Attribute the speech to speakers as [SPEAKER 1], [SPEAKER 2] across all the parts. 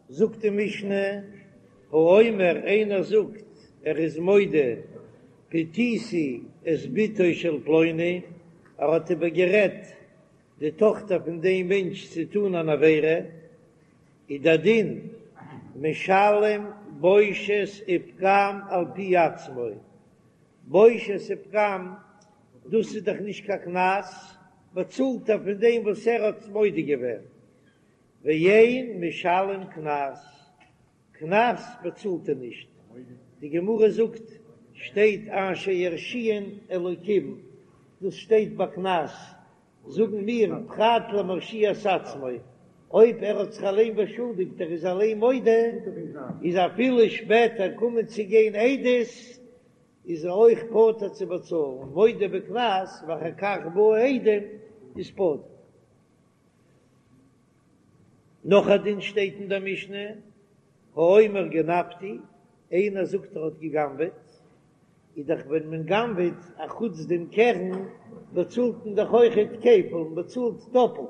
[SPEAKER 1] זאגט די משנה, האומר איינער זאגט ער איז מודה פתיתי את בתו של פלוני, ער האט איבער גערעדט די טאכטער פון דעם מענטש צו טון אן עבירה, איז דער דין משלם בושת ופגם על פי עצמו, בושת ופגם דאס איז דאך נישט קיין קנס, באצאלט ער פון דעם וואס ער האט מודה געווען, ואין משלם קנס, קנס באצאלט ער נישט, די גמרא זאגט שטייט אשר ירשיען אלוקים, דאס שטייט ביי קנס, זאגן מיר פרט למרשיע את עצמו, אויב ער האט זיך אליין באשולדיגט ער איז אליין מודה, איז אפילו שפעטער קומען צו גיין עדות איז ער אויך פטור צו באצאלן, מודה בקנס ואחר כך באו עדים איז פטור. נאך א דין שטייט אין דער משנה, האומר גנבתי, איינער זאגט ער האט גע'גנב'עט, איז דאך ווען מען גנב'עט א חוץ דעם קרן באצאלט מען דאך אויכעט כפל, מען באצאלט דאפלט,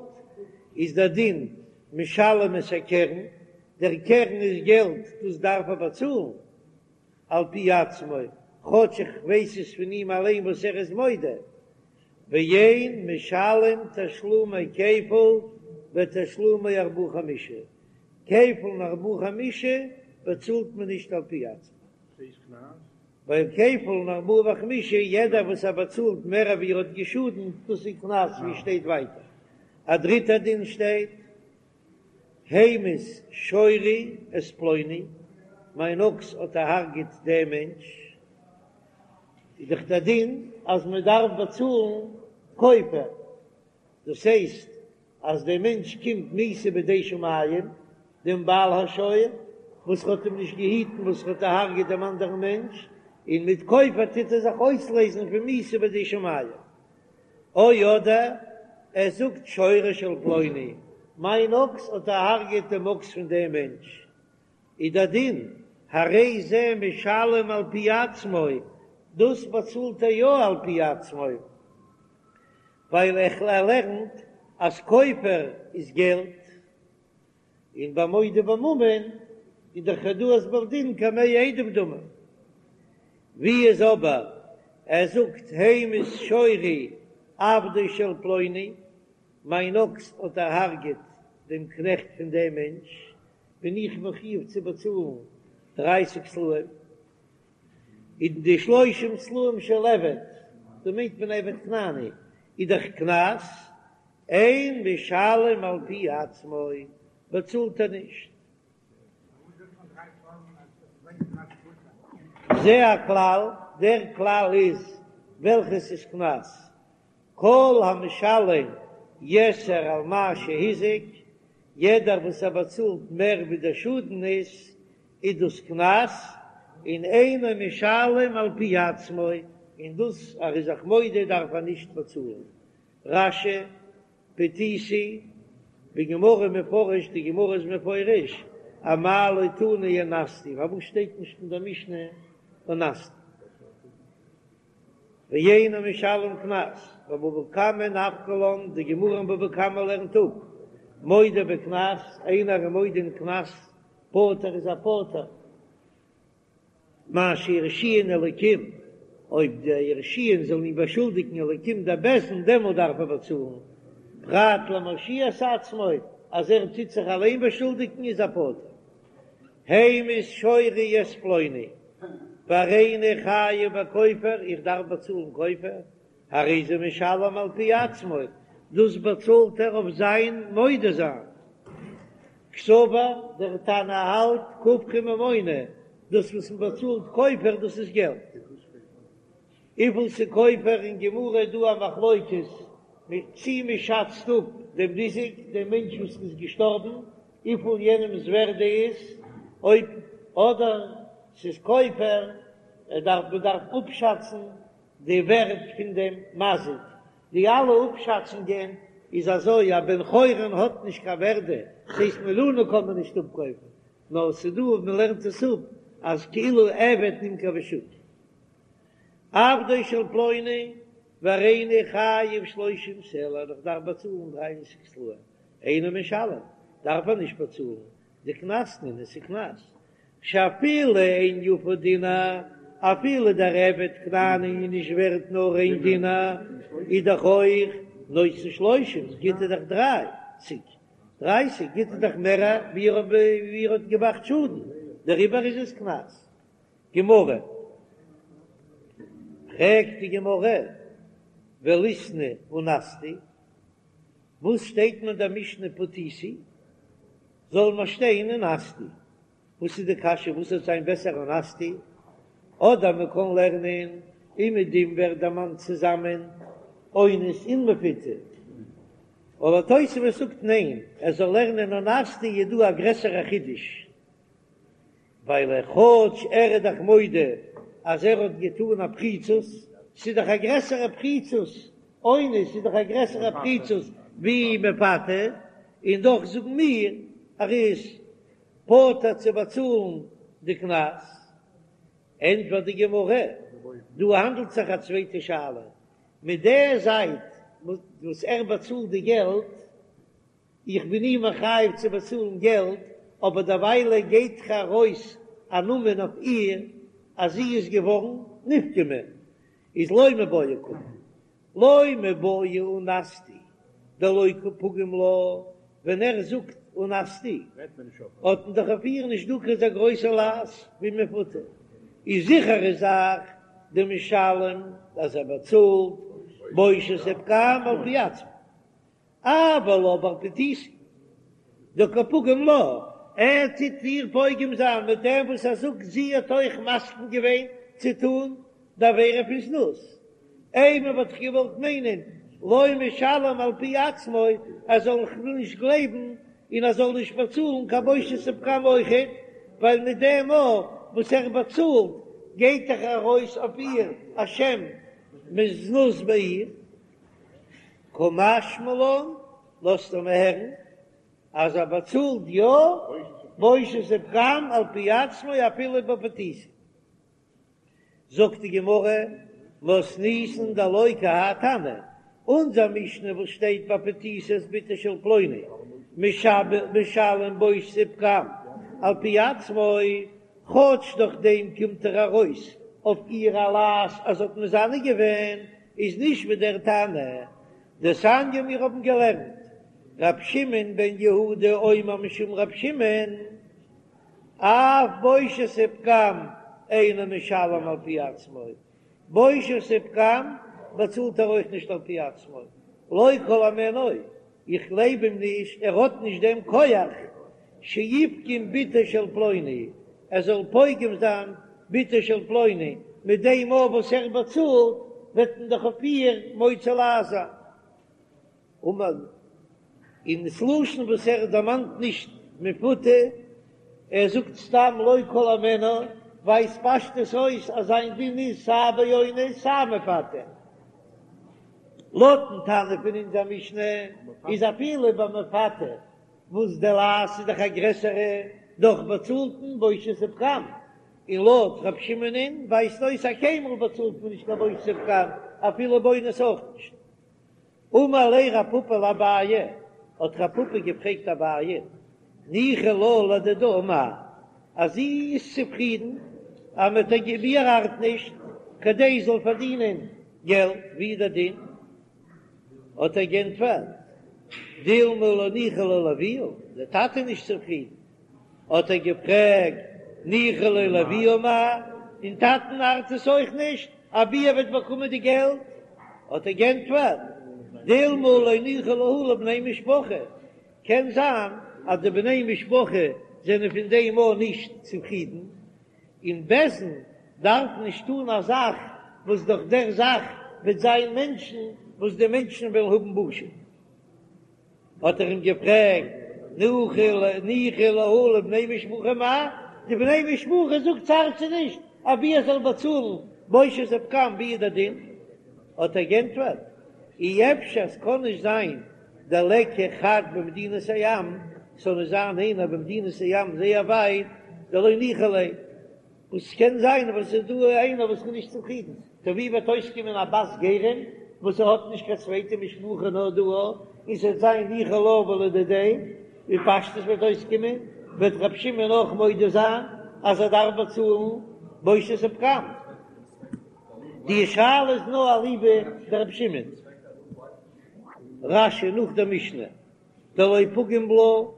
[SPEAKER 1] איז דער דין משלם את הקרן, דער קרן איז געלט דאס דארף ער באצאלן על פי עצמו, כאטש איך ווייס עס פון אים אליין וואס ער איז מודה, ואין משלם תשלומי כפל ותשלומי ארבעה חמישה, כפל און ארבעה חמישה באצאלט מען נישט על פי עצמו. ווייל כפל און ארבעה וחמישה יעדער וואס ער באצאלט מער ווי ער האט געשאדנט דאס איז קנס ווי שטייט ווייטער. א דריטע דין שטייט המית שורי את פלוני, מיין אקס האט דערהרגעט דעם מענטש, איז דאך דער דין אז מען דארף באצאלן כופר, דאס הייסט אז דער מענטש קומט מיתה בידי שמים, דעם בעל השור וואס האט אים נישט געהיטן וואס האט דערהרגעט דעם אנדערן מענטש, און מיט כופר טוט ער זיך אויסלעזן פון מיתה בידי שמים. או אדער ער זאגט שורו של פלוני, מיין אקס האט דערהרגעט דעם אקס פון דעם מענטש, איז דער דין הרי זה משלם על פי עצמו, דאס באצאלט ער יא על פי עצמו, ווייל ער לערנט אז כופר איז געלט, און ביי מודה בממון איז דאך הודאת בעל דין כמאה עדים דמי. ווי איז אבער ער זאגט המית שורי עבדו של פלוני, מיין אקס האט דערהארגעט דעם קנעכט פון דעם מענטש, בין איך מחויב צו באצאלן דרייסיג סלעים, און די שלושים סלעים של עבד, דא מיינט מען עבד כנעני, איז דאך קנס, אין משלם על פי עצמו, באצאלט ער נישט. זה הכלל, דער כלל איז וועלכעס איז קנס, כל המשלם יתר על מה שהזיק, יעדער וואס ער באצאלט מער ווי דער שאדן איז, איז דאס קנס, און אינו משלם על פי עצמו, און דאס ער איז זיך מודה דארף ער נישט באצאלן. רש"י, פתיתי, בגמרא מפרש, די גמרא איז מפרש, אמאי לא תנא אנסתי, פארוואס שטייט נישט אין דער משנה אנסתי? ואינו משלם קנס, בבבא קמא נפקא לן, די גמרא אין בבא קמא לערנט אפ, מודה בקנס, איינער איז מודה אין קנס, פטור איז ער פטור, מה שירשיען אלקים, אויב די ירשיען זאלן אים באשולדיגן אלקים דער בית דין, דעמאלט דארף ער באצאלן, פרט למרשיע את עצמו, אז ער טוט זיך אליין באשולדיגן איז ער פטור. המית שורי את פלוני, והריני חייב בכופר, איך דארף באצאלן כופר, הרי זה משלם על פי עצמו, דאס באצאלט ער אויף זיין מודה זיין. קסבר, דער תנא האלט כופרא ממונא, דאס וואס מען באצאלט כופר דאס איז געלט. וויפיל ס'איז כופר אין גמרא איז דא א מחלוקת צי מען שאצט אפ דעם ניזק, דעם מענטש וואס איז געשטארבן, וויפיל יענעמ'ס ווערדע איז, אויב אדער ס'איז כופר, ער דארף מען דארף אפשאצן די ווערד פון דעם מזיק, די אלע אפשאצונגען איז אזוי, א בן חורין האט נישט קיין ווערדע, ס'הייסט מיליאנען קען מען נישט אפקויפן, נאר ס'דא וואס מ'לערנט עס אפ אז כאילו עבד נמכר בשוק. עבדו של פלוני והריני חייב שלושים סלע, איך דארף באצאלן דרייסיג סלעים, אינו משלם, דארף ער נישט באצאלן. דקנס נינהו, ס'איז קנס, שאפילו אין יפה דינר, אפילו דער עבד כנעני איז נישט ווערט נאר איין דינר, איז דאך אויך נותן שלושים, גיט ער דאך דרייסיג, דרייסיג גיט ער דאך מער ווי ער האט געמאכט שאדן, דעריבער איז עס קנס. גמרא, פרעגט די גמרא, וליתני אנסתי, וואס שטייט אין דער משנה פתיתי, זאל מען שטיין אנסתי, וואס איז די קשיא וואס וועט זיין בעסער אנסתי, אדער מען קען לערנען אומעדום ווערט דערמאנט צוזאמען אונס און מפותה, אבער תוספות זאגט ניין, ער זאל לערנען אנסתי איז דא א גרעסערע חידוש. ווייל ער כאטש ער איז דאך מודה אז ער האט געטאן א פריצות, ס'איז דאך א גרעסערע פריצות, אונס איז דאך א גרעסערע פריצות ווי מפתה, און דאך זאגן מיר ער איז פטור צו באצאלן די קנס. ענטפערט די גמרא, דא האנדלט זיך א צווייטע שאלה, מיט די זייט וואס ער באצאלט די געלט, איך בין אים מחייב צו באצאלן געלט, אבער דערוויילע גייט דאך ארויס א נאמען אויף איר אז זי איז געווארן נפגמה, איז לא מיבעיא קאמר, לא מיבעיא אנסתי דלא קא פגים לה, ווען ער זאגט אנסתי האט מען דאך אויף איר נישט דא קיין אזא גרויסע לעז ווי מפותה, איז זיכערע זאך דמשלם אז ער באצאלט בושת ופגם על פי עצמו. אבל אבער פתיתי דקא פגים לה, ער טוט איר פוגם זיין מיט דעם וואס ער זאגט זי האט אויך מסכים געווען צו טון די עבירה פון זנות, אימא וואלט איך געוואלט מיינען לא משלם על פי עצמו, ער זאל נישט גלייבן און ער זאל נישט באצאלן קיין בושת ופגם אויכעט, ווייל מיט דעם מאל וואס ער באצאלט גייט דאך ארויס אויף איר א שם מזנות ביי איר. קא משמע לן, לאזט ער מיר הערן אז ער באצאלט יא בושת ופגם על פי עצמו אפילו בפתיתי. זאגט די גמרא, מתניתין דלא כי האי תנא, אונזער משנה וואס שטייט ביי פתיתי את בתו של פלוני משלם בושת ופגם על פי עצמו, כאטש דורך דעם קומט ער ארויס אויף איר א לעז אז זי האט מזנה געווען, איז נישט ווי דער תנא דתניא מיר האבן געלערנט ר' שמעון בן יהודה אומר משום ר' שמעון אף בושת ופגם אינו משלם על פי עצמו, בושת ופגם באצאלט ער אויך נישט על פי עצמו, לא כל הימנו, איך גלייב אים נישט, ער האט נישט דעם כח שיפגום בתו של פלוני, ער זאל פוגם זיין בתו של פלוני, מיט דעם אויף וואס ער באצאלט וועט מען דאך אויף איר מוציא לעז זיין. אמר, און ס'לשון וואס ער דערמאנט נישט מפותה, ער זאגט סתם לא כל הימנו, ווייזט פשטות אויס אז זיין דין איז סיי באונס סיי מפתה. לויטן תנא פון אונזער משנה איז אפילו ביי מפתה וואס די לעז איז דאך א גרעסערע, דאך באצאלט מען בושת ופגם, און לויט ר' שמעונ'ען ווייזט אויס אז קיינמאל באצאלט מען נישט קיין בושת ופגם אפילו באונס אויך נישט. אמר ליה רב פפא לאביי, האט רב פפא געפרעגט אביי, ניחא לה לדידה מאי, אז זי איז צופרידן אז מען האט איר איר ארט נישט כדי זי זאל פארדינען געלט, ווי איז דער דין? האט ער גענטפערט, דילמא לא ניחא ליה לאביה, דער טאטע איז נישט צופרידן, האט ער געפרעגט, ניחא ליה לאביה מאי, דעם טאטן ארט עס אויך נישט, אבי ער וועט באקומען די געלט, האט ער גענטפערט, דילמא לא ניחא להו לבני משפחה, קען זיין אז די בני משפחה זענען פון דעם אויך נישט צופרידן, און בית דין דארף נישט טון א זאך וואס דורך דער זאך וועט זיין מענטשן וואס די מענטשן וועלן האבן בושה. האט ער אים געפרעגט, ניחא להו לבני משפחה מאי? די בני משפחה זאגט ס'ארט זיי נישט, אבי ער זאל באצאלן בושת ופגם ווי איז דער דין? האט ער גענטפערט, אי אפשר ס'קען נישט זיין דליכא חד במדינת הים, ס'זאל נישט זיין איינער במדינת הים זייער ווייט, דלא ניחא ליה, וואס ס'קען זיין וואס ס'איז דא איינער וואס איז נישט צופרידן, טא ווי וועט אויסקומען א בת גרים וואס ער האט נישט קיין צווייטע משפחה נאר דא און ס'וועט זיין ניחא לה ולדידיה, ווי פשטות וועט אויסקומען? וועט רבי שמעון אויך מודה זיין אז ער דארף באצאלן בושת ופגם. די שאלה איז נאר אליבא דרבי שמעון. רש"י נאך דער משנה דלא פגים לה,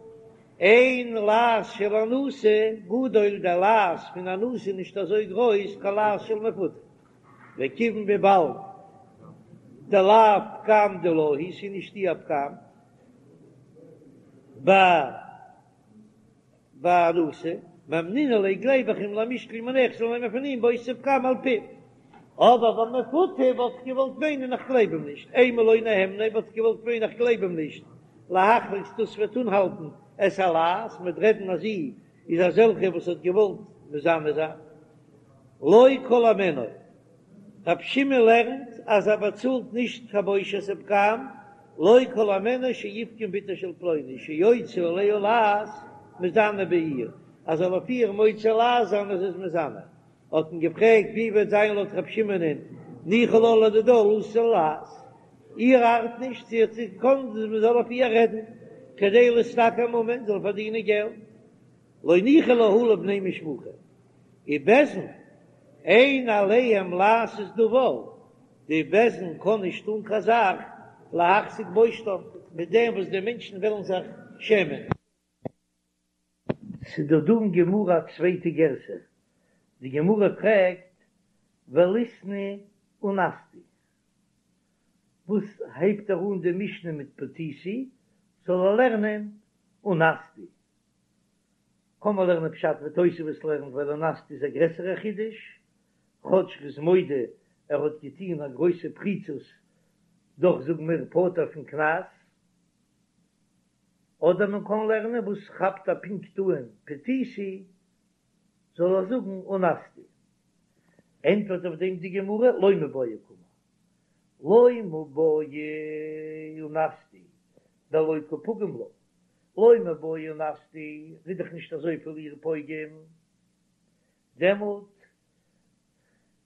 [SPEAKER 1] אין לעז של אנוסה גדול, דער לעז פון אנוסה איז נישט אזוי גרויס כלעז של מפותה, וכיוון וויבאלד דלאו פגם דילה הוא, ס'איז נישט איר פגם באנוסה, מהימנא ליה גלייב איך אים למישקל מיניה איך זאל נעמען פון אים בושת ופגם על פיו. אבער ביי מפותה וואלט איך געוואלט מיינען איך גלייב אים נישט, אימא לא נהמניה וואלט איך געוואלט מיינען איך גלייב אים נישט, להחזיק דאס וועט אנהאלטן את הלעז, מ'וועט רעדן אז זי איז אזעלכע וואס האט געוואלט מזנה זיין. לא כל הימנו. רב שמעון לערנט אז ער באצאלט נישט קיין בושת ופגם, לא כל הימנו שיפגום בתו של פלוני שיוציא עליה לעז מזנה בעיר, אז זאל אויף איר מוציא לעז זיין אז זי איז מזנה. האט מען געפרעגט ווי וועט זיין לויט רב שמעונ'ען ניחא לה לדידה לתת לעז, איר ארט נישט זי האט געקאנט מען זאל אויף איר רעדן כדי להשתכר ממון זאל פארדינען געלט, לא ניחא להו לבני משפחה ובית דין אין עליהם לעשות דבר, די בית דין קען נישט טון קיין זאך להחזיק בושתם מיט דעם וואס די מענטשן וועלן זיך שעמען. ס'איז דא דא אין גמרא א צווייטע גירסא, די גמרא פרעגט וליתני אנסתי, וואס הייבט ער אן די משנה מיט פתיתי, זאל ער לערנען אנסתי, קען מען לערנען פשט ווי תוספות לערנט ווייל אנסתי איז א גרעסערע חידוש, כאטש ר'איז מודה ער האט געטוהן א גרויסע פריצות דאך זאגן מיר פטור פון קנס. אדער מען קען לערנען וואס כאפט ער פונקט אן פתיתי זאל ער זאגן אנסתי. ענטפערט אויף דעם די גמרא לא מיבעיא קאמר לא מיבעיא אנסתי דלא קא פגים לה לא מיבעיא אנסתי ר'איז דאך נישט אזויפיל איר פוגם דעמאלט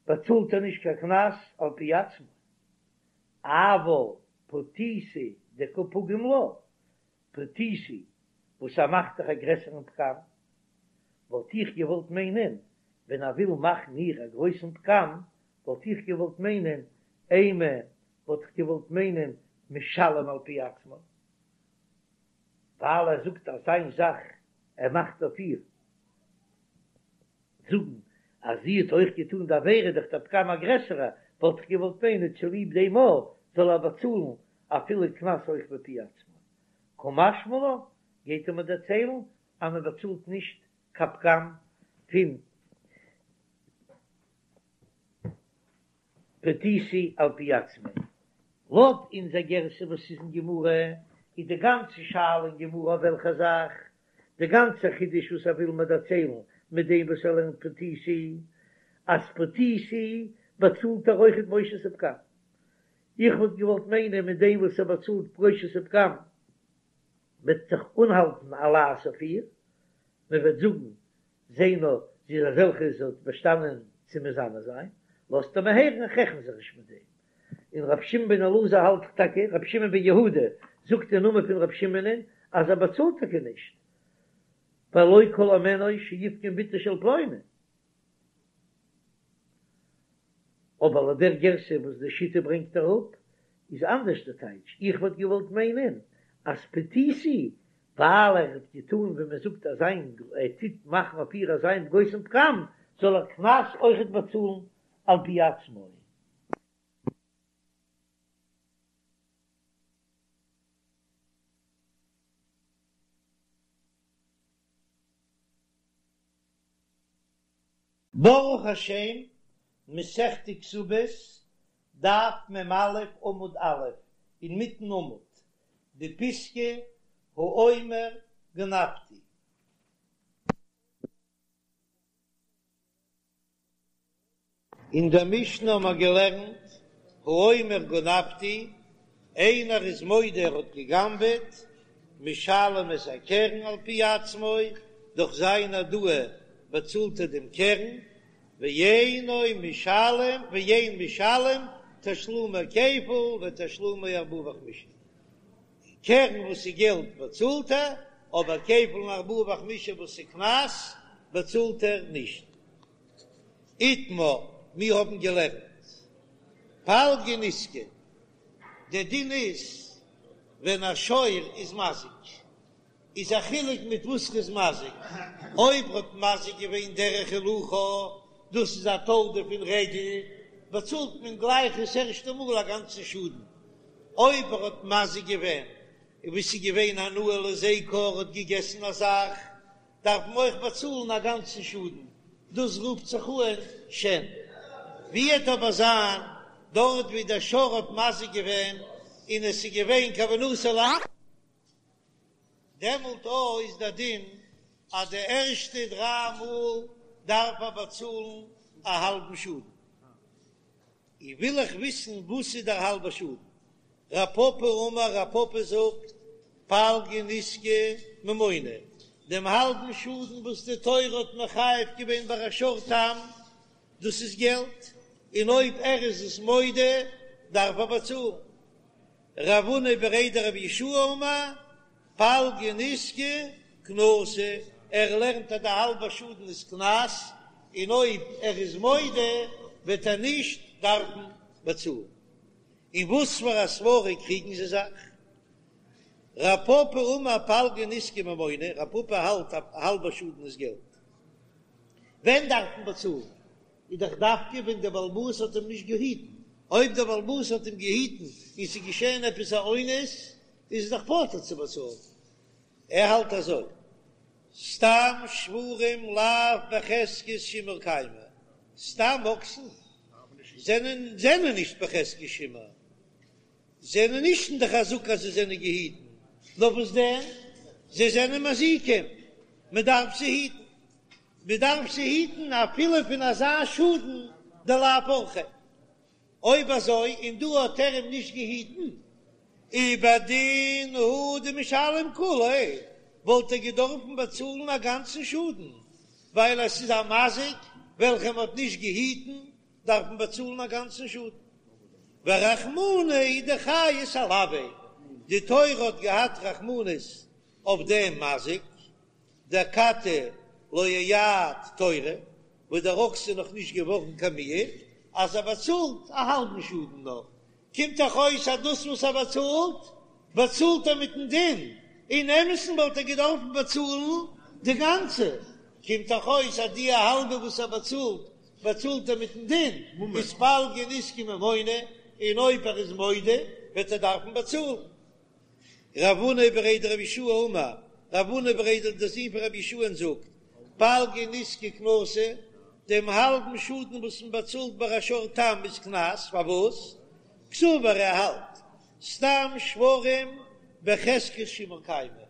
[SPEAKER 1] באצאלט ער נישט קיין קנס על פי עצמו אבל פתיתי דקא פגים לה, פתיתי וואס ער מאכט דאך א גרעסערן פגם, וואלט איך געוואלט מיינען ווען ער וויל מאכן איר א גרויסן פגם, וואלט איך געוואלט מיינען אימא וואלט איך געוואלט מיינען משלם על פי עצמו, ווייל ער זאגט אזא זאך ער מאכט אויף איר. זאגן אז זי האט אויך געטאן די עבירה דאך דער פגם א גרעסערע, וואלט איך געוואלט מיינען צוליב דעם א זאל ער באצאלן אפילו קנס אויך בפי עצמו. קא משמע לן, גייט ער מיר דערציילן אז מען באצאלט נישט קיין פגם פון פתיתי על פי עצמו. לויט אונזער גירסא וואס איז אין גמרא, איז די גאנצע שאלה אין גמרא אויף וועלכע זאך? די גאנצע חידוש וואס ער וויל מיר דערציילן מיט דעם וואס ער לערנט פתיתי, אז פתיתי באצאלט ער אויכעט בושת ופגם. איך וואלט געוואלט מיינען מיט דעם וואס ער באצאלט בושת ופגם וועט זיך אנהאלטן א לעז אויף איר, מען וועט זאגן זע נאר, זי איז אזעלכע זי האט באשטאנען צו מזנה זיין, לאזט ער מיר הערן איך רעכן זיך נישט מיט דעם. און רבי שמעון בן אלעזר האלט דאך טאקע, רבי שמעון בן יהודה זאגט אין נאמען פון רבי שמעונ'ען אז ער באצאלט טאקע נישט, ווייל לא כל הימנו שיפגום בתו של פלוני. אבער לויט דער גירסא וואס די שיטה ברענגט אראפ איז אנדערש די טייטש, איך וואלט געוואלט מיינען אז פתיתי ווייל ער האט געטאן ווי מען זאגט אזיין ער טוט מאכן אויף איר אזיין גרויסן פגם זאל ער קנס אויכעט באצאלן על פי עצמו. ברוך השם, מסכת כתובות, דף מ"א עמוד א', אינמיטן עמוד, די פיסקא האומר גנבתי. אין דער משנה האבן מיר געלערנט, האומר גנבתי, איינער איז מודה ער האט געגנבעט, משלם את הקרן על פי עצמו, דורך זיין הודאה באצאלט ער דעם קרן, ואינו משלם ואין משלם תשלומי כפל ותשלומי ארבעה וחמישה, קרן וואס איז געלט באצאלט ער, אבער כפל און ארבעה וחמישה וואס איז קנס באצאלט ער נישט. איתמר, מיר האבן געלערנט פלגא נזקא, דער דין איז ווען א שור איז מזיק, איז א חילוק מיט וואס ר'איז מזיק, אויב ר'האט מזיק געווען דרך הילוכה, דאס איז א תולדה פון רגל, באצאלט מען גלייך דאס ערשטע מאל א גאנצן שאדן, אויב ער האט מזיק געווען ווי ס'איז געווען הנאה להזיקו, ער האט געגעסן א זאך, דארף מען אויך באצאלן א גאנצן שאדן, דאס רופט זיך אן שן. ווי וועט אבער זיין דארט ווי דער שור האט מזיק געווען און עס איז געווען כוונתו להזיק, דעמאלט אויך איז דער דין אז די ערשטע דריי מאל דארף ער באצאלן א האלבן שאדן. און וויל איך וויסן וואס איז דער האלבער שאדן. רב פפא אמר רב פפא זאגט פלגא נזקא ממונא, דעם האלבן שאדן וואס די תורה האט מחייב געווען ביי א שור תם, דאס איז געלט, און אויב ער איז עס מודה דארף ער באצאלן. רב הונא בריה דרב יהושע אמר פלגא נזקא קנסא, ער לערנט אז די האלבע שאדן איז קנס, און אויב ער איז מודה וועט ער נישט דארפן באצאלן. און וואס פאר א סברא קריגן זיי זיך? רב פפא אמר פלגא נזקא ממונא, רב פפא האלט א האלבע שאדן איז געלט. ווען דארף מען באצאלן? איז דאך דווקא ווען דער בעל הבית האט אים נישט געהיטן, אויב דער בעל הבית האט אים געהיטן און ס'איז געשען עפעס א אונס, איז ער דאך פטור צו באצאלן. ער האלט אזוי, סתם שוורים לאו בחזקת שימור קיימי, סתם אקסן זענען זענען נישט בחזקת שימור, זענען נישט אין די חזקה אז זיי זענען געהיטן, נאר וואס דען, זיי זענען מזיקים, מען דארף זיי היטן. מען דארף זיי היטן אפילו פון אזא שאדן דלאו אורחיה. אויב אזוי און דא האט ער אים נישט געהיטן, ובדין הוא דמשלם כוליה, וואלט ער געדארפן באצאלן א גאנצן שאדן, ווייל עס איז א מזיק וועלכע מען האט נישט געהיטן, דארף מען באצאלן א גאנצן שאדן. ורחמנא הוא דחייס עילויה, די תורה האט געהאט רחמנות אויף דעם מזיק, דאכתי לא אייעד תורא, וואס דער אקס איז נאך נישט געווארן קיין מועד, אז ער באצאלט א האלבן שאדן נאר, קומט דאך אויס אז דאס וואס ער באצאלט, באצאלט ער מיטן דין, אין אמת'ן וואלט ער געדארפן באצאלן די גאנצע, קומט דאך אויס אז די האלבע וואס ער באצאלט, באצאלט ער מיטן דין, איז פלגא נזקא ממונא, און אויב ער איז מודה וועט ער דארפן באצאלן. רב הונא בריה דרב יהושע אמר, רב הונא בריה דער זון פון רבי יהושע'ן זאגט, פלגא נזקא קנסא, דעם האלבן שאדן וואס מען באצאלט ביי א שור תם איז קנס, פארוואס? קסבר ער האלט, סתם שוורים בחזקת שימור קיימי,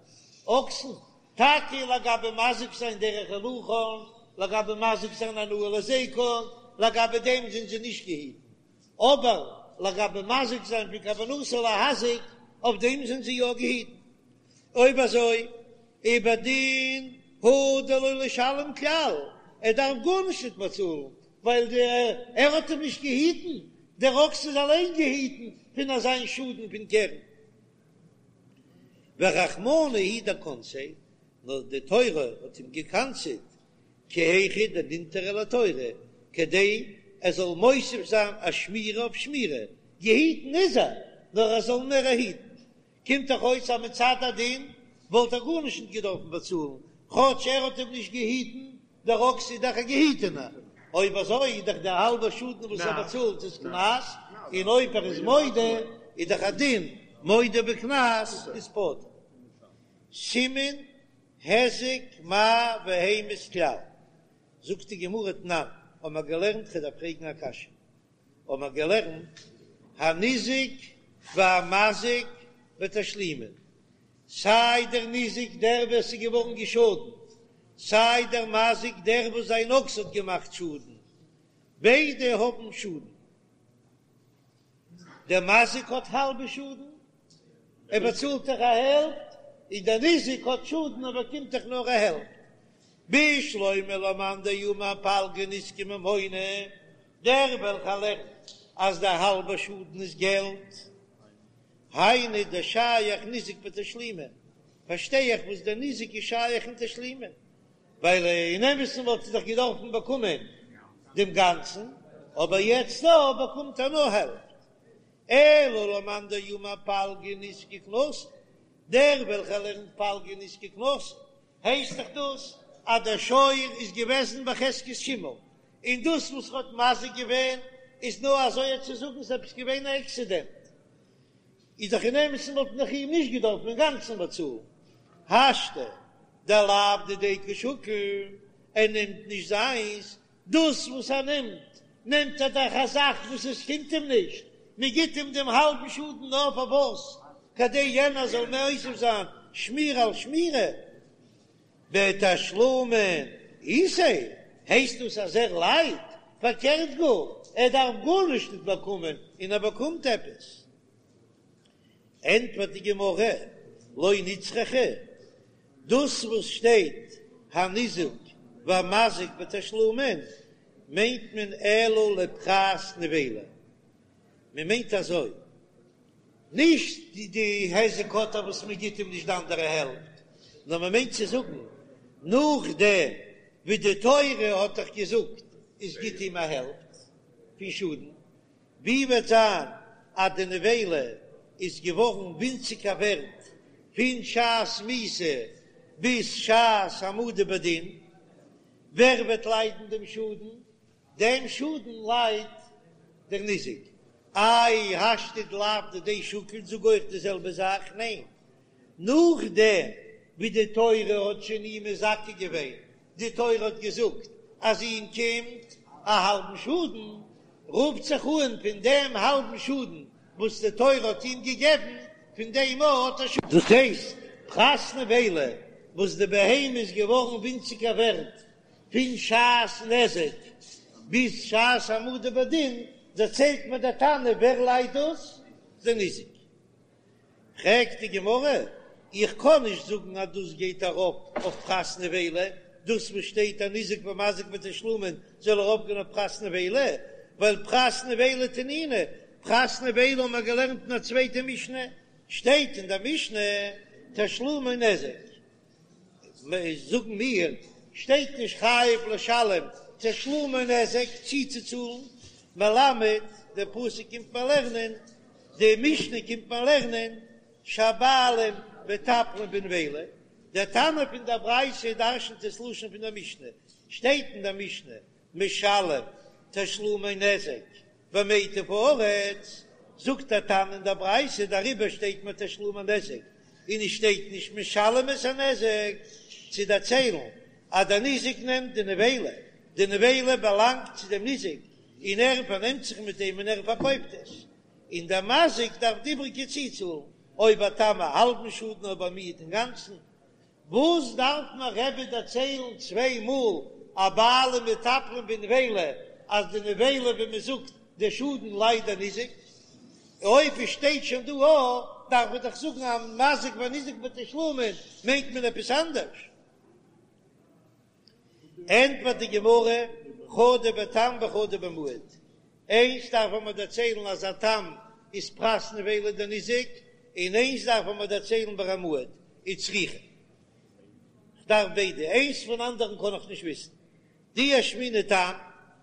[SPEAKER 1] אקסן, טאקע לגבי מזיק זיין דרך הילוכן, לגבי מזיק זיין הנאה להזיקן, לגבי דעם זענען זיי נישט געהיטן, אבער לגבי מזיק זיין פון כוונתו להזיק, אויף דעם זענען זיי יא געהיטן. אויב אזוי, ובדין הוא דלא לשלם כלל, ער דארף גארנישט נישט באצאלן, ווייל ער האט אים נישט געהיטן, דער אקס איז אליין געהיטן פון אזיין שאדן פון קרן. ורחמנא הוא דקנסיה, נאר די תורה האט אים געקנס'עט כי היכי דנינטריה לתורא, כדי ער זאל מוסיף זיין א שמירה אויף שמירה, געהיטן איז ער, נאר ער זאל מער היטן. קומט דאך אויס אז מצד הדין וואלט ער גארנישט נישט געדארפן באצאלן, כאטש ער האט אים נישט געהיטן, דער אקס איז דאך א געהיטענער, אויב אזוי איז דאך דער האלבער שאדן וואס ער באצאלט איז קנס, און אויב ער איז מודה איז דאך א דין מודה בקנס איז פטור. סימן היזק מאי והמית כלל, זאגט די גמרא תנן, האבן מיר געלערנט כ'דארף פרעגן א קשיא, האבן מיר געלערנט הניזק והמזיק בתשלומין, סיי דער ניזק דער ווער ס'איז געווארן געשאדנט, סיי דער מזיק דער וואס זיין אקס האט געמאכט שאדן, ביידע האבן שאדן. דער מזיק האט האלבע שאדן, ער באצאלט דאך א העלפט, און דער ניזק האט שאדן ער באקומט דאך נאר א העלפט. בשלמא למאן דאמר פלגא נזקא ממונא, דער וועלכער לערנט אז דער האלבע שאדן איז געלט, היינו דשייך ניזק בתשלומין. פארשטיי איך וואס דער ניזק איז שייך אין תשלומין, ווייל אין אמת'ן וואלט ער דאך געדארפן באקומען דעם גאנצן, אבער יעצט דא באקומט ער נאר העלפט. אלא למאן דאמר פלגא נזקא קנסא, דער וועלכער לערנט פלגא נזקא קנסא, הייסט דאך דאס אז דער שור איז געוועזן בחזקת שימור, און דאס וואס ער האט מזיק געווען איז נאר אזוי צו זאגן ס'איז עפעס געווען א עקסידענט, איז דאך אין אמת'ן וואלט מען דאך איהם נישט געדארפן אינגאנצן באצאלן, השתא דלאו דידיה קא שקיל, ער נעמט נישט זיינס, דאס וואס ער נעמט, נעמט ער דאך א זאך וואס עס קומט אים נישט, מען גיט אים דעם האלבן שאדן נאר פאר וואס? כדי יענער זאל מוסיף זיין שמירה על שמירה. בתשלומין איתיה, הייסט דאס אז ער ליידט? פארקערט גאר, ער דארף גארנישט נישט באקומען און ער באקומט עפעס. ענטפערט די גמרא, לא נצרכה, דאס וואס שטייט הניזוק והמזיק בתשלומין מיינט מען אלא לפחת נבילה, מען מיינט אזוי, נישט די היזק האט ער וואס מען גיט אים נישט די אנדערע העלפט, נאר מען מיינט צו זאגן נאכדעם ווי די תורה האט דאך געזאגט עס גיט אים א העלפט פון שאדן, ווי וועט זיין אז די נבילה איז געווארן ווינציגער ווערט פון שעת מיתה ביז שעת העמדה בדין, ווער וועט ליידן דעם שאדן? דעם שאדן ליידט דער ניזק. איי השתא דלאו דידיה שקיל זאג אויך די זעלבע זאך? ניין, נאכדעם ווי די תורה האט שוין אים מזכה געווען, די תורה האט געזאגט אז אים קומט א האלבן שאדן, רופט זיך אן פון דעם האלבן שאדן וואס די תורה האט אים געגעבן, פון דעם האט ער שאדן. דאס הייסט, פחת נבילה וואס די בהמה איז געווארן ווינציגער ווערט פון שעת נזק ביז שעת העמדה בדין, דערציילט מיר דער תנא ווער ליידט דאס? דער ניזק. פרעגט די גמרא, איך קען נישט זאגן אז דאס גייט ארויף אויף פחת נבילה, דאס וואס שטייט הניזק והמזיק בתשלומין זאל ארויפגיין אויף פחת נבילה, ווייל פחת נבילה תנינא, פחת נבילה האבן מיר געלערנט אין א צווייטע משנה, שטייט אין דער משנה תשלומי נזק. זאגן מיר, שטייט נישט חייב לשלם תשלומי נזק צוצוצאלן, מלמד, דער פסוק קומט מיר לערנען, די משנה קומט מיר לערנען, שהבעלים מטפלין בנבילה, דער תנא פון דער ברייתא דרשנ'ט עס לשון פון דער משנה, שטייט אין דער משנה, משלם תשלומי נזק במיטב הארץ, זאגט דער תנא אין דער ברייתא, דעריבער שטייט מיר תשלומי נזק און עס שטייט נישט משלם את הנזק, צו דערציילן אז דער ניזק נעמט די נבילה, די נבילה באלאנגט צו דעם ניזק און ער פארנעמט זיך מיט דעם און ער פארקויפט עס, און דער מזיק דארף די איבריגע צוצאלן, אויב א תם א האלבן שאדן אויב א מועד אינגאנצן. וואס דארף מיר רבי דערציילן צוויי מאל אז בעלים מטפלין בנבילה אז די נבילה ווי מען זאגט די שאדן ליידט דער ניזק, אויב עס שטייט שוין דא א דארף מען דאך זאגן אז מזיק וניזק בתשלומין מיינט מען עפעס אנדערש. ענטפערט די גמרא, חדא בתם וחדא במועד, איינס דארף מען דערציילן אז א תם איז פחת נבילה דניזק, און איינס דארף מען דערציילן ביי א מועד, וצריכא. כ'דארף ביידע, איינס פון אנדערן קען איך נישט וויסן. דאי אשמעינן תם,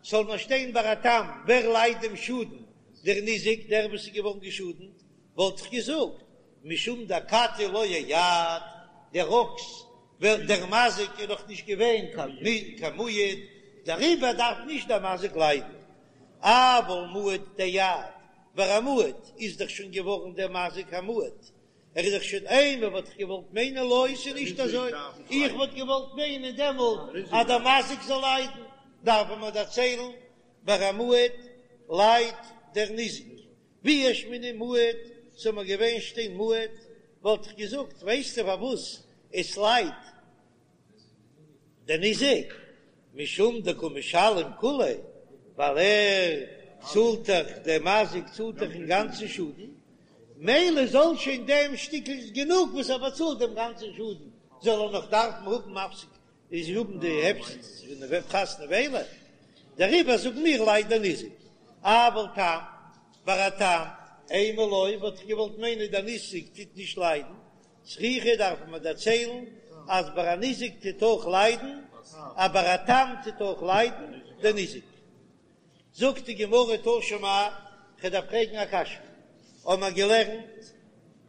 [SPEAKER 1] זאל מען שטיין ביי א תם, ווער ליידט דעם שאדן, דער ניזק, דער וואס איז געווארן געשאדנט, וואלט איך געזאגט, משום דאכתי לא אייעד, דער אקס ווייל דער מזיק איז נאך נישט געווען קיין מועד, דעריבער דארף נישט דער מזיק ליידן. אבל מועד דאייעד, ביי א מועד איז דאך שוין געווארן דער מזיק א מועד, ער איז דאך שוין אימא וואלט איך געוואלט מיינען לא, ס'איז נישט אזוי, איך וואלט געוואלט מיינען דעמאלט אז דער מזיק זאל ליידן, דארף מען דערציילן ביי א מועד ליידט דער ניזק, ואי אשמעינן מועד, ס'זאל מיר געווען שטיין מועד, וואלט איך געזאגט, ווייסטו פארוואס עס ליידט דער ניזק? משום דקא משלם כוליה, ווייל ער צאלט דאך, דער מזיק צאלט דאך אינגאנצן שאדן, מילא זאל שוין דעם שטיקל איז גענוג וואס ער באצאלט דעם גאנצן שאדן, זאל ער נאך דארפן האבן מפסיק איז האבן די הפסד פון פחת נבילה, דעריבער זאגן מיר ליידט דער ניזק, אבל תם, ביי א תם, אימא לא, וואלט איך געוואלט מיינען דער ניזק טוט נישט ליידן. צריכא דארף מען דערציילן אז ביי א ניזק טוט אויך ליידן, אבער א תם טוט אויך ליידן דער ניזק. זאגט די גמרא תא שמע, כ'דארף פרעגן א קשיא, האבן מיר געלערנט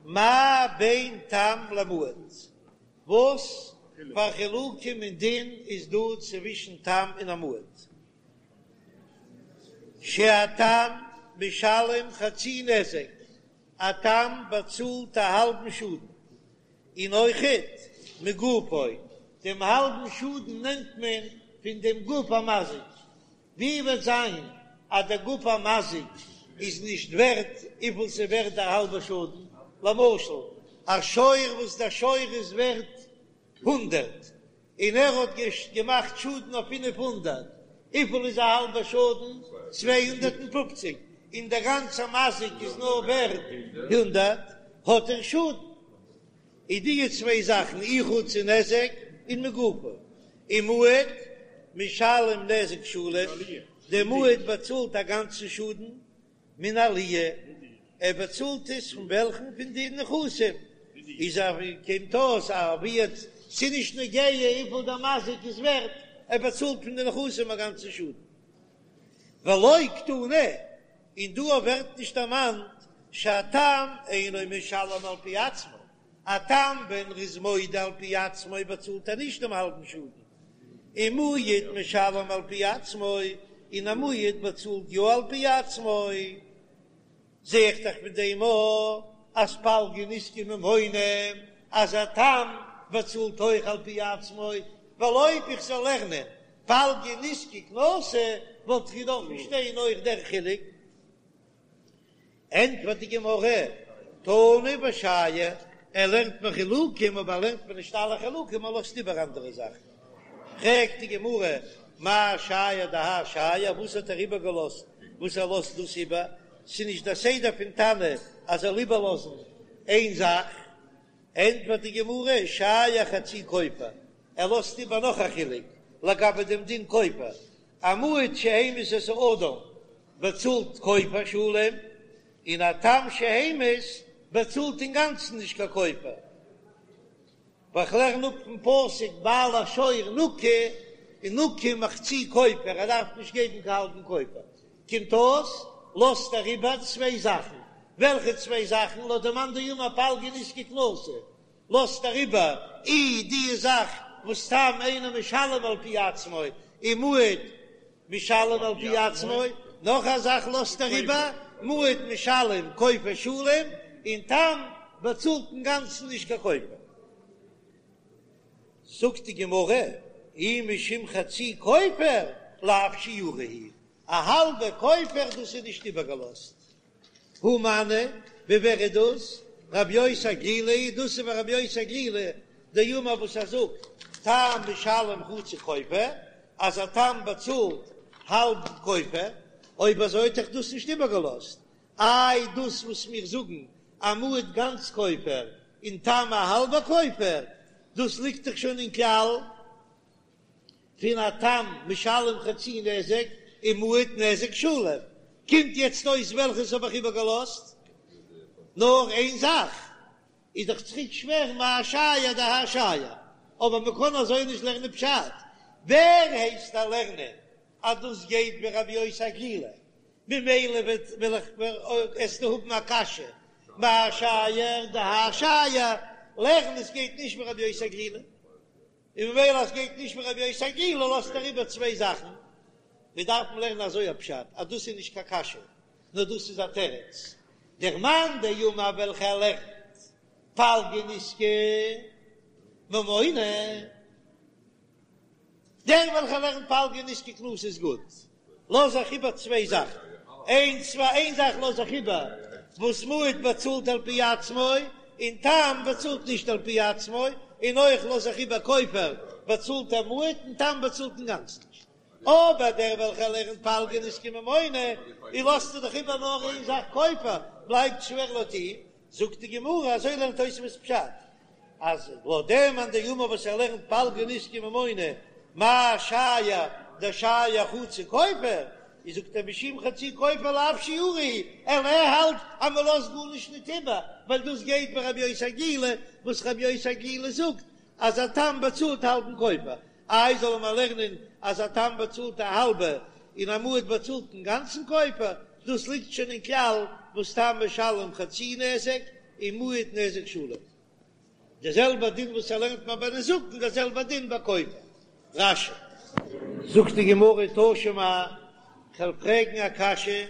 [SPEAKER 1] מה בין תם למועד, וואס פאר חילוקים אין דין איז דא צווישן תם און א מועד? שהתם משלם חצי נזק, א תם באצאלט א האלבן שאדן, און אויכעט מגופו, דעם האלבן שאדן נעמט מען פון דעם גוף המזיק, ווי וועט זיין אז דער גוף המזיק איז נישט ווערט וויפיל ס'איז ווערט דער האלבער שאדן, למשל א שור וואס דער שור איז ווערט הונדערט און ער האט געמאכט שאדן אויף 500, וויפיל איז א האלבער שאדן? 250, און דער גאנצער מזיק איז נאר ווערט הונדערט, האט ער שאדן. איז די צוויי זאכן אי חצי נזק און מגופו, און מועד משלם נזק שלם, דער מועד באצאלט א גאנצן שאדן מן העליה, ער באצאלט עס פון וועלכן? פון די נכסים, איז א קומט אויס א ווי ס'איז נישט נוגע וויפיל דער מזיק איז ווערט, ער באצאלט פון די נכסים א גאנצן שאדן. ולא קתני, און דא ווערט נישט דערמאנט שהתם אינו משלם על פי עצמו, א תם ווען ער איז מודה על פי עצמו באצאלט ער נישט דעם האלבן שאדן, און מועד משלם על פי עצמו, און א מועד באצאלט יא על פי עצמו, זע איך דאך פון דעם אויך אז פלגא נזקא ממונא, אז א תם באצאלט אויך על פי עצמו, ווייל אויב איך זאל לערנען פלגא נזקא קנסא וואלט איך געדארפט שטיין אויך דער חילוק. ענטפערט די גמרא, תנא ושייר, ער לערנט מיר חילוקים אבער ער לערנט מיר נישט אלע חילוקים ער לאזט איבער אנדערע זאכן. פרעגט די גמרא, מאי שייר דהאי שייר, וואס האט ער איבערגעלאזט וואס ער לאזט דאס איבער? ס'איז נישט דער סדר פון תנא אז זאל איבערלאזן איין זאך. ענטפערט די גמרא, שייר חצי כופר, ער לאזט איבער נאך א חילוק לגבי דעם דין כופר, א מועד שהמית את האדם באצאלט כופר שלם, און א תם שהמית באצאלט אינגאנצן נישט קיין כופר. ווייל כ'לערן אפ פון פסוק בעל השור נקי און נקי מחצי כופר, ער דארף נישט געבן קיין האלבן כופר. קומט אויס לאזט ער איבער צוויי זאכן, וועלכע צוויי זאכן? לויט דעם מאן דאמר פלגא נזקא קנסא לאזט ער איבער אי די זאך וואס תם אינו משלם על פי עצמו און מועד משלם על פי עצמו, נאך א זאך לאזט ער איבער, מועד משלם כופר שלם, און תם באצאלט אינגאנצן נישט קיין כופר. זאגט די גמרא, אי משום חצי כופר לאו שיורא הוא, א האלבע כופר דאס איז נישט איבערגעלאזט. הא מני, ווי ווער איז דאס? רבי יוסי הגלילי, דאס איז ווי רבי יוסי הגלילי דאמר וואס ער זאגט, תם משלם חצי כופר, אז א תם באצאלט האלב כופר, אויב אזוי האט דאך דאס נישט איבערגעלאזט, איי דאס וואס מיר זאגן א מועד גאנץ כופר און תם א האלבע כופר, דאס ליגט דאך שוין אין כלל. פון א תם משלם חצי נזק און מועד נזק שלם, קומט יעצט אויס וועלכעס האב איך איבערגעלאזט? נאר איין זאך, איז דאך צוריק שווער מאי שייר דהאי שייר, אבער מען קען אזוי נישט לערנען פשט, ווער הייסט דיר לערנען אז דאס גייט ווי רבי יוסי הגלילי, ממילא וועט וועל איך וועסטו האבן א קשיא מאי שייר דהאי שייר, לערן עס גייט נישט ווי רבי יוסי הגלילי. און ממילא אז גייט נישט ווי רבי יוסי הגלילי לאזט ער איבער צוויי זאכן, מיר דארפן לערנען אזוי א פשט אז דאס איז נישט קיין קשיא נאר דאס איז א תירוץ, דער מאן דאמר וועלכער לערנט פלגא נזקא ממונא, דער וועלכער לערנט פלגא נזקא קנסא איז גוט, לאז איך איבער צוויי זאכן, איין צוויי איין זאך לאז איך איבער וואס מועד באצאלט על פי עצמו און תם באצאלט נישט על פי עצמו, און אויך לאז איך איבער כופר באצאלט א מועד און תם באצאלט אינגאנצן נישט. אבער דער וועלכער לערנט פלגא נזקא ממונא, און לאזט ער דאך איבער נאר איין זאך כופר, בלייבט שווער לויט אים, זאגט די גמרא אזוי לערנט תוספות פשט, אז לויט דעם מאן דאמר וואס ער לערנט פלגא נזקא ממונא, מאי שייר דשייר חצי כופר? איז זאגט ער משום חצי כופר לאו שיעורא אלא ער האלט אז מען לאזט גארנישט ניט איבער, ווייל דאס גייט ווי רבי יוסי הגלילי, וואס רבי יוסי הגלילי זאגט אז א תם באצאלט האלבן כופר, איי זאל מען לערנען אז א תם באצאלט א האלבע און א מועד באצאלט אינגאנצן כופר, דאס ליגט שוין אין כלל וואס תם משלם חצי נזק און מועד נזק שלם. די זעלבע דין וואס ער לערנט מיר ביי נזקין דער זעלבע דין ביי כופר. רש"י. זאגט די גמרא תא שמע, כ'וועל פרעגן א קשיא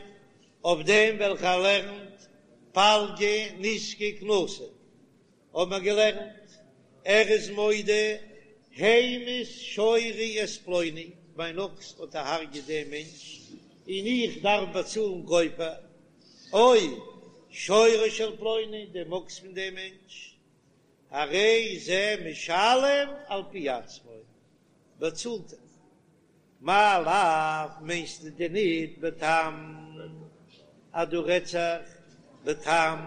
[SPEAKER 1] אויף דעם וועלכער לערנט פלגא נזקא קנסא, האבן מיר געלערנט, ער איז מודה המית שורי את פלוני, מיין אקס האט דערהרגעט דעם מענטש און איך דארף באצאלן כופר, או שורו של פלוני, דעם אקס פון דעם מענטש, הרי זה משלם על פי עצמו, באצאלט ער. מאי לאו, מיינסטו דען ניט בתם אז דא רעדט זיך בתם,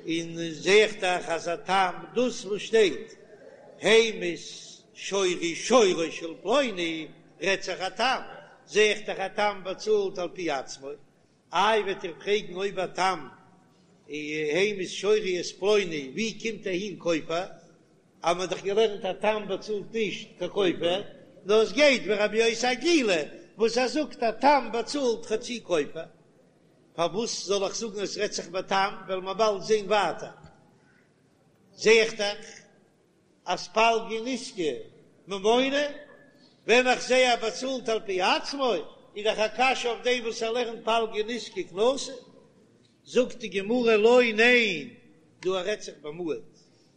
[SPEAKER 1] און זע איך דאך אז א תם, דאס וואס שטייט המית שורי שורו של פלוני רעדט זיך א תם, זע איך דאך א תם באצאלט על פי עצמו, איי וועט איר פרעגן אויב א תם המית שורי את פלוני ווי קומט אהין כופר? אז מען האט דאך געלערנט א תם באצאלט נישט קיין כופר, נאר עס גייט ווי רבי יוסי הגלילי וואס ער זאגט א תם באצאלט חצי כופר, פארוואס זאל איך זאגן עס רעדט זיך בתם, וועלן מיר באלד זען ווייטער, זע איך דאך אז פלגא נזקא ממונא, ווען איך זע ער באצאלט על פי עצמו, איז דאך א קשיא אויף דעם וואס ער לערנט פלגא נזקא קנסא, זאגט די גמרא לא ניין, דא רעדט זיך במועד,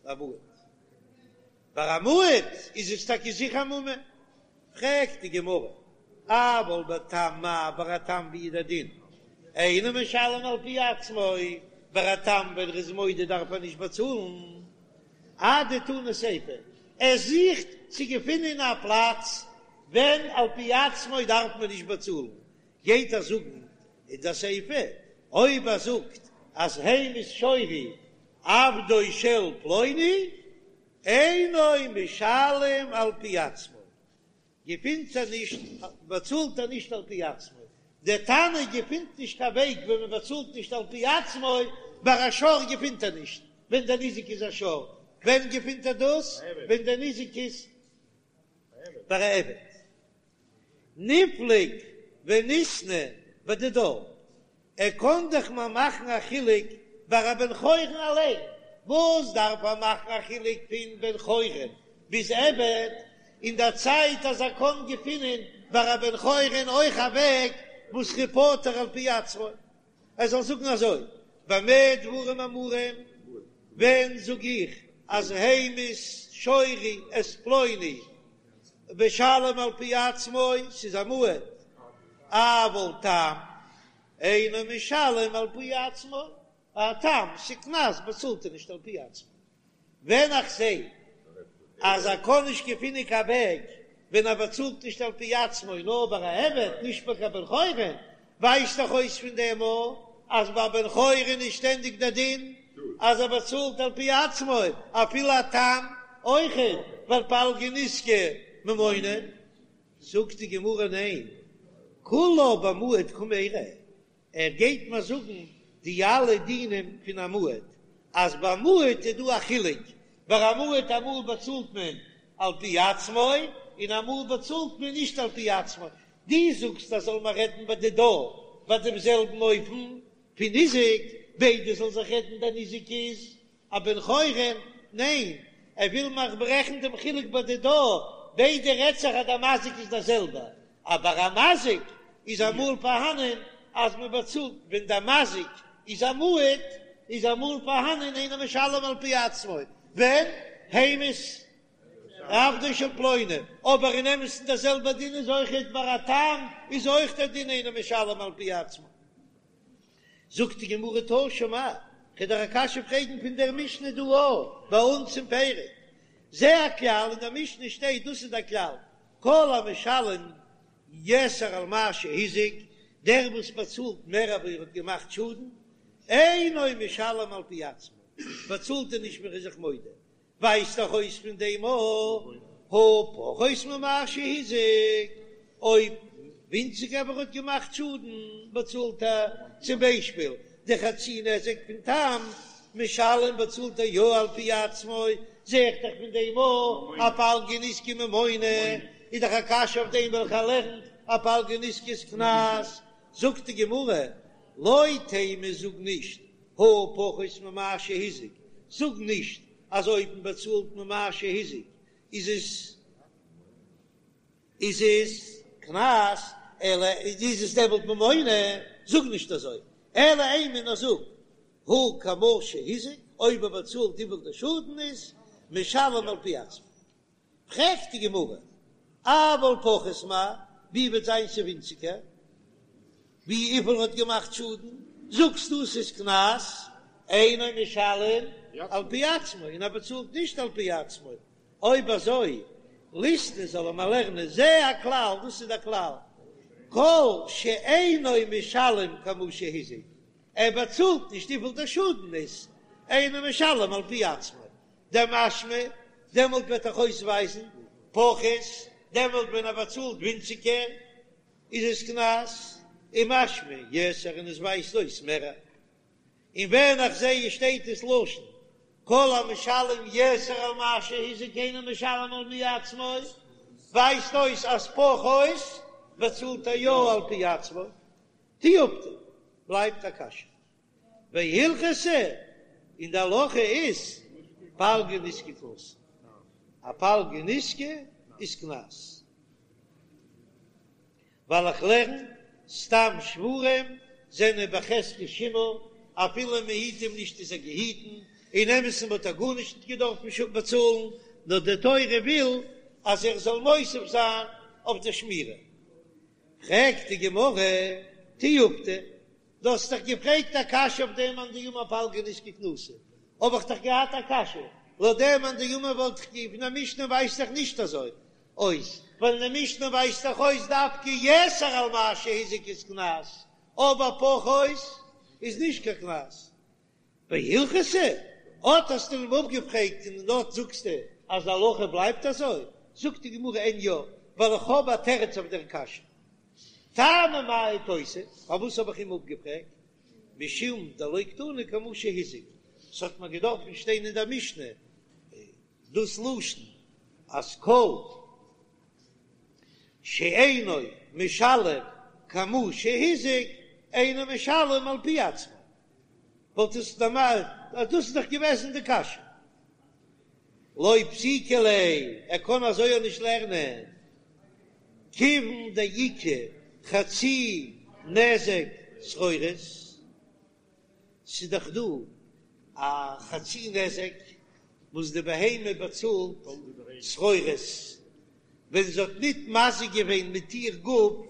[SPEAKER 1] במועד, ביי א מועד איז עס טאקע זיכער ממון, פרעגט די גמרא, אבל בתם מאי, ביי א תם ווי איז דער דין, אינו משלם על פי עצמו, ביי א תם ווען ער איז מודה דארף ער נישט באצאלן, אדתני סיפא, ער זוכט צו געפינען א פלאץ ווען על פי עצמו דארף מען נישט באצאלן, גייט ער זאגן אין די סיפא, אויב ער זאגט אז המית שורי עבדו של פלוני אינו משלם על פי עצמו, געפינט ער נישט, באצאלט ער נישט על פי עצמו, דער תנא געפינט נישט קיין וועג ווען מען באצאלט נישט על פי עצמו, ביי א שור געפינט ער נישט ווען דער ניזק איז א שור, ווען געפינט ער דאס? ווען דער ניזק איז ביי א עבד. ניפלוג וניתני בדידה, ער קען דאך מיר מאכן א חילוק ביי א בן חורין אליין, וואס דארף ער מאכן א חילוק פון בן חורין ביז עבד, אין דער צייט אז ער קען געפינען ביי א בן חורין אויך א וועג וואס ער איז פטור על פי עצמו, ער זאל זאגן אזוי, במה דברים אמורים, ווען זאג איך אז המית שורי את פלוני משלם על פי עצמו, ס'איז א מועד, אבל תם אינו משלם על פי עצמו, א תם ס'קנס באצאלט ער נישט על פי עצמו. ווען איך זע אז ער קען נישט געפינען קיין וועג ווען ער באצאלט נישט על פי עצמו נאר ביי א עבד נישט ביי קיין בן חורין, ווייזט דאך אויס פון דעם א אז ביי בן חורין איז שטענדיג דער דין אז ער באצאלט על פי עצמו אפילו א תם אויכעט, ווייל פלגא נזקא ממונא. זאגט די גמרא ניין, כולה במועד קמיירי, ער גייט מיר זאגן די אלע דינים פון א מועד, אז ביי מועד איז דא א חילוק, ביי א מועד אמאל באצאלט מען על פי עצמו און אמאל באצאלט מען נישט על פי עצמו, דו זאגסט אז זאל מען רעדן בדידה ביי דעם זעלבן אופן פון ניזק, ביידע זאל זיך רעדן דער ניזק איז א בן חורין, ניין, ער וויל מיך ברעכן דעם חילוק בדידה, ביידע רעדט זיך אז דער מזיק איז דער זעלבער, אבער א מזיק איז אמאל פארהאנען אז מען באצאלט ווען דער מזיק איז א מועד, איז אמאל פארהאנען אינו משלם על פי עצמו, ווען המית עבדו של פלוני, אבער אין אמת'ן דער זעלבער דין איז אויכעט ביי א תם איז אויך דער דין אינו משלם על פי עצמו. זאגט די גמרא תא שמע, כ'וועל דיר א קשיא פרעגן פון דער משנה דא א ביי אונז אין פרק, זה הכלל, אין דער משנה שטייט דאס איז דער כלל, כל המשלם יתר על מה שהזיק, דער וואס באצאלט מער אווי ער האט געמאכט שאדן, אינו משלם על פי עצמו, באצאלט ער נישט ווען ער איז זיך מודה, ווייזט דאך אויס פון דעם א הא פחות ממה שהזיק, אויב. ווינציגער ווי ער האט געמאכט שאדן באצאלט ער, צום ביישפיל די חצי נזק פון תם משלם באצאלט ער יא על פי עצמו, זע איך דאך פון דעם אויך אז פלגא נזקא ממונא, איז דאך א קשיא אויף דעם וועלכער לערנט אז פלגא נזקא איז קנס, זאגט די גמרא, לא תימא זאג נישט הא פחות ממה שהזיק, זאג נישט אז אויב מען באצאלט ממה שהזיק איז עס איז עס קנס, אלא איז עס דעמאלט ממונא, זאג נישט אזוי, אלא אימא נאר זאג הא כמה שהזיק, אויב ער באצאלט וויפיל דער שאדן איז, משלם על פי עצמו. פרעגט די גמרא, אבל פחות מאי, ווי וועט זיין ס'ווינציגער ווי וויפיל האט געמאכט שאדן, זאגסטו ס'איז קנס, אינו משלם על פי עצמו, און ער באצאלט נישט על פי עצמו, אויב אזוי ליתני זאל ער מיר לערנען זה הכלל, דאס איז דער כלל, כל שאינו משלם כמה שהזיק, ער באצאלט נישט וויפיל דער שאדן איז, אינו משלם על פי עצמו, דמשמע, דעמאלט וועט דאך אויסווייזן פחות, דעמאלט ווען ער באצאלט ווינציגער איז עס קנס, ומשמע יתר און עס ווייזט אויס מער. און ווען איך זע עס שטייט עס לשון כל המשלם יתר על מה שהזיק אינו משלם על פי עצמו, ווייזט אויס אז פחות באצאלט ער יא על פי עצמו, תיובתא, בלייבט א קשיא. והלכתא, און די הלכה איז פלגא נזקא קנסא, א פלגא נזקא איז קנס, ווייל איך לערן סתם שוורים זענען בחזקת שימור, אפילו מען היט אים נישט איז ער געהיטן, אין אמת'ן וואלט ער גארנישט געדארפן באצאלן, נאר די תורה וויל אז ער זאל מוסיף זיין אויף די שמירה. פרעגט די גמרא, תיובתא, דו האסט דאך געפרעגט א קשיא אויף דעם מאן דאמר פלגא נזקא קנסא, האב איך דאך געהאט א קשיא, לויט דעם מאן דאמר וואלט איך גע פון א משנה ווייזט דאך נישט אזוי אויס, ווייל אין די משנה ווייזט דאך אויס דווקא יתר על מה שהזיק איז קנס, אבער פחות איז נישט קיין קנס. והלכתא, אט האסטו אים אפגעפרעגט און דארט זאגסטו אז די הלכה בלייבט אזוי, זאגט די גמרא אין יא, ווייל איך האב א תירוץ אויף דער קשיא. טעמא מאי תיתיב, פארוואס האב איך אים אפגעפרעגט? משום דלא קתני כמה שהזיק, ס'האט מיר געדארפן שטיין אין דער משנה דאס לשון אז כל שאינו משלם כמה שהזיק אינו משלם על פי עצמו, וואלט עס דערמאנט אז דאס איז דאך געוועזן די קשיא. לא פסיקא ליה, ער קען אזוי אויך נישט לערנען, כיוון דאיכא חצי נזק צרורות, ס'איז דאך דא א חצי נזק וואס די בהמה באצאלט צרורות, ווען זי האט ניט מזיק געווען מיט איר גוף,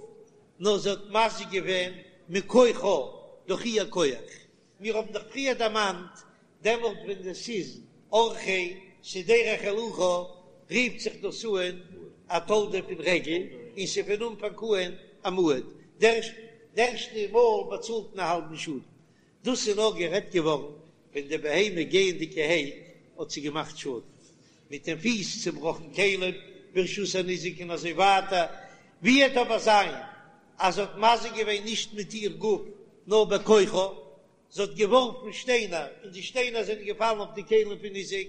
[SPEAKER 1] נאר זי האט מזיק געווען מכוחה, דורך איר כח. מיר האבן דאך פריער דערמאנט, דעמאלט ווען עס איז אורחיה, ס'איז דרך הילוכה, רופט זיך דאס אן א תולדה פון רגל, און ס'איז פון אנפאנג אן א מועד, די ערשטע מאל באצאלט מען א האלבן שאדן. דאס איז נאר גערעדט געווארן ווען די בהמה גייענדיגערהייט האט זי געמאכט שאדן, מיט דעם פיס צובראכן כלים ברשות הניזק און אזוי ווייטער, ווי וועט אבער זיין אז זי האט מזיק געווען נישט מיט איר גוף נאר בכוחה, זי האט געווארפן שטיינער און די שטיינער זענען געפאלן אויף די כלים פון ניזק,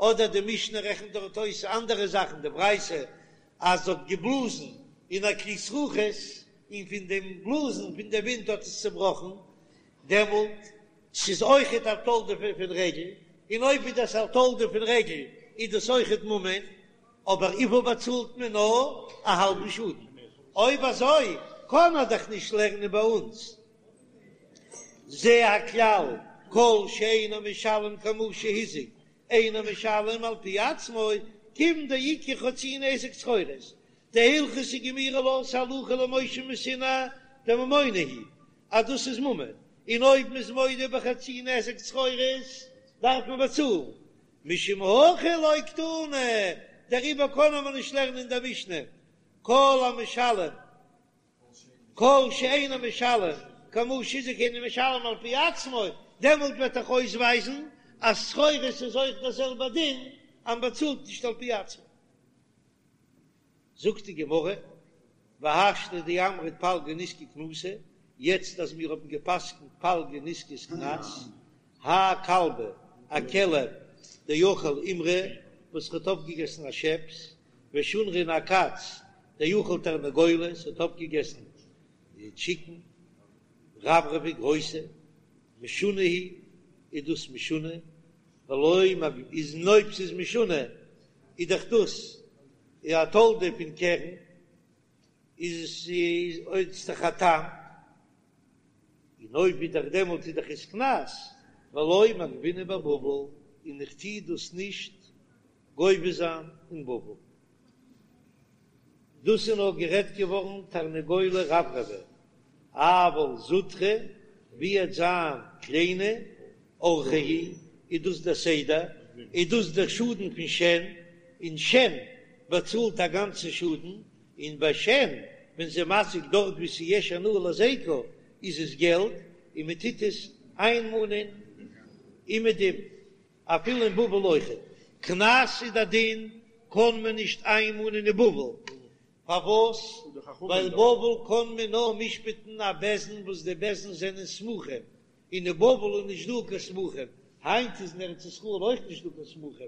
[SPEAKER 1] אדער די משנה רעכנט דארט אויס אנדערע זאכן, די ברייתא אז זי האט געבלאזן אין א כלי זכוכית און פון דעם בלאזן פון די ווינט האט עס צובראכן, דעמאלט ס'איז אויכעט א תולדה פון רגל, און אויב איז דאס א תולדה פון רגל איז דאס אויכעט ממון, אבער וויפיל באצאלט מען נאר א האלבן שאדן, אויב אזוי קען ער דאך נישט לערנען ביי אונז זה הכלל כל שאינו משלם כמה שהזיק אינו משלם על פי עצמו, כיוון דאיכא חצי נזק צרורות, דהלכתא גמירי לה ס'הלכה למשה מסיני דממונא הוא אז דאס איז ממון, און אויב מ'איז מודה בחצי נזק צרורות דארף מען באצאלן, משום הכי לא קתני, דעריבער קען מען נישט לערנען אין דער משנה כל המשלם כל שאינו משלם כמה שהזיק אינו משלם על פי עצמו, דעמאלט וועט דאך אויסווייזן אז צרורות איז אויך דער זעלבער דין אז מ'באצאלט נישט על פי עצמו. זאגט די גמרא. והשתא דאמרת פלגא נזקא קנסא, יעצט אז מיר האבן גע'פסק'נט פלגא נזקא איז קנס, האי כלבא, א כלב דאכל אימרא וואס האט אויפגעגעסן א שעפס, ושונרא און א קאץ דאכל תרנגולא האט אויפגעגעסן די טשיקן, רברבי גרויסע, משונה הוא, איז דאס משונה, ולא מג איז און אויב ס'איז משונה איז דאך דאס א תולדה פון קרן, איז עס איז דאך א תם, און אויב איז דאך דעמאלט איז דאך עס קנס, ולא מגבינן בבבל, און איך טוה דאס נישט גובה זיין אין בבל. דאס איז נאר גערעדט געווארן תרנגולא רברבי, אבל זוטרא, ווי עט זיין קליינע אורחיה הוא, איז דאס דער סדר, איז דאס דער שאדן פון שן, און שן באצאלט א גאנצע שאדן, און ביי שן ווען ס'איז מזיק דארט ווי ס'איז יש הנאה להזיקה איז עס געלט, און מען טוט עס איינמאנען אומעדום. אפילו אין בבל אויכעט. קנס איז די דין, קען מען נישט איינמאנען אין בבל. פארוואס? ווייל בבל קען מען נאר משפט'ן א בית דין וואס די בית דין זענען סמוכים, און אין בבל איז נישט דא קיין סמוכים, היינט איז אין ארץ ישראל אויך נישט דא קיין סמוכים.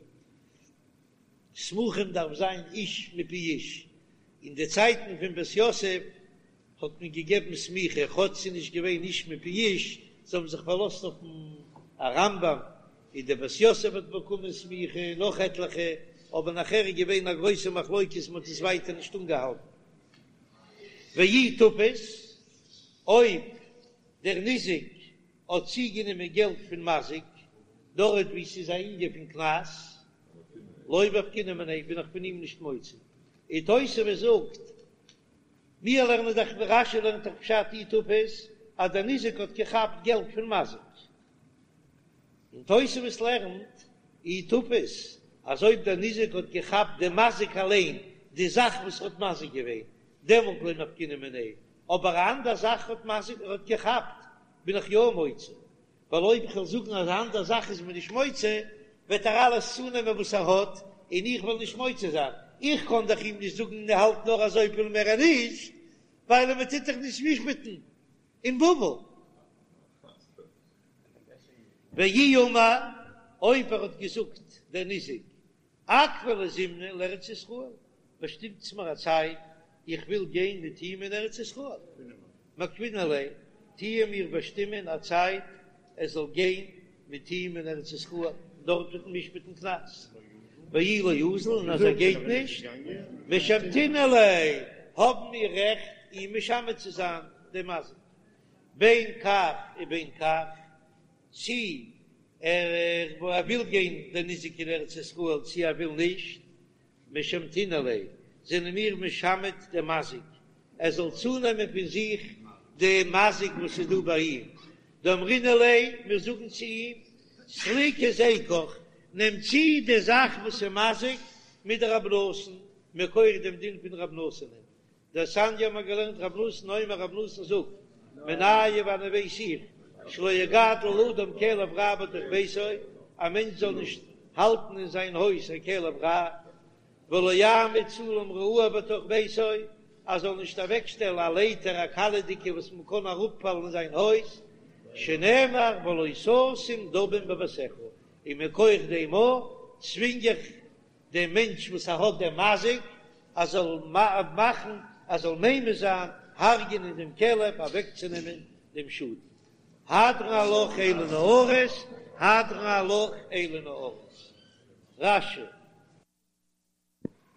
[SPEAKER 1] סמוכים דארף זיין איש מפי איש, אין די צייטן פון בית יוסף האט מען געגעבן סמיכה כאטש ס'איז נישט געווען איש מפי איש, זיי האבן זיך פארלאזט אויפן רמב"ם, און דער בית יוסף האט באקומען סמיכה און נאך עטליכע, אבער נאכער איז געווען א גרויסע מחלוקת מען האט עס ווייטער נישט אנגעהאלטן. ואי תפס, אויב דער ניזק האט צוגענומען געלט פון מזיק, דארט וואו ס'איז א ענין פון קנס, לא מפקינן מיניה, בין איך פון אים נישט מוציא. און תוספות זאגט, מיר לערנען דאך ווי רש"י לערנט דאך פשט אי תפס אז דער ניזק האט געכאפט געלט פון מזיק, און תוספות לערנט אי תפס אז אויב דער ניזק האט געכאפט דעם מזיק אליין, די זאך וואס האט מזיק געווען, דעמאלט לא מפקינן מיניה, אבער א אנדער זאך האט מזיק האט געכאפט בין איך יא מוציא. ווייל אויב איך וועל זאגן אז א אנדער זאך איז מען נישט מוציא, וועט ער אלעס צונעמען וואס ער האט, און איך וועל נישט מוציא זיין. איך קען דאך אים נישט זאגן האלט נאר אזויפיל מער נישט, ווייל מען טוט דאך נישט משפט'ן אין בבל. ואי אמר, אויב ער האט געזאגט דער ניזק, אקבעו לי זימנא לארץ ישראל, באשטימטס מיר א צייט, איך וויל גיין מיט אים אין ארץ ישראל. מקבעינן ליה, טוען מיר באשטימען א צייט ער זאל גיין מיט אים אין ארץ ישראל, דארט וועט מען משפט'ן קנס. ואי לא אזיל, און אז ער גייט נישט, משמתינן ליה, האבן מיר רעכט אים משמת צו זיין דעם מזיק. בין כך ובין כך, צי ער וויל גיין דער ניזק אין ארץ ישראל צי ער וויל נישט, משמתינן ליה, זענען מיר משמת דעם מזיק, ער זאל צונעמען פון זיך די מזיק וואס איז דא ביי אים, דאמרינן ליה, מיר זאגן צו אים, סליק היזקך, נעם צו די זאך וואס איז מזיק מדרבי נתן, מכח דעם דין פון רב נתן'ען, דתניא האבן מיר געלערנט רב נתן אומר רב נתן זאגט מנין וואנען ווייס איך שלא יגדל אדם כלב רע בתוך ביתו א מענטש זאל נישט האלטן אין זיין הויז א כלב רע ולא יעמיד סולם רעוע בתוך ביתו ער זאל נישט אוועקשטעלן א לייטער א קיילעכדיקע וואס מען קען אראפפאלן אין זיין הויז שנאמר ולא תשים דמים בביתך און מכח דעם צווינג איך דעם מענטש וואס ער האט דעם מזיק, ער זאל מאכן, ער זאל ממית זיין, הרג'ענען דעם כלב, אוועקצונעמען דעם שאדן. הדרן עלך אלו נערות, הדרן עלך אלו נערות. רש"י.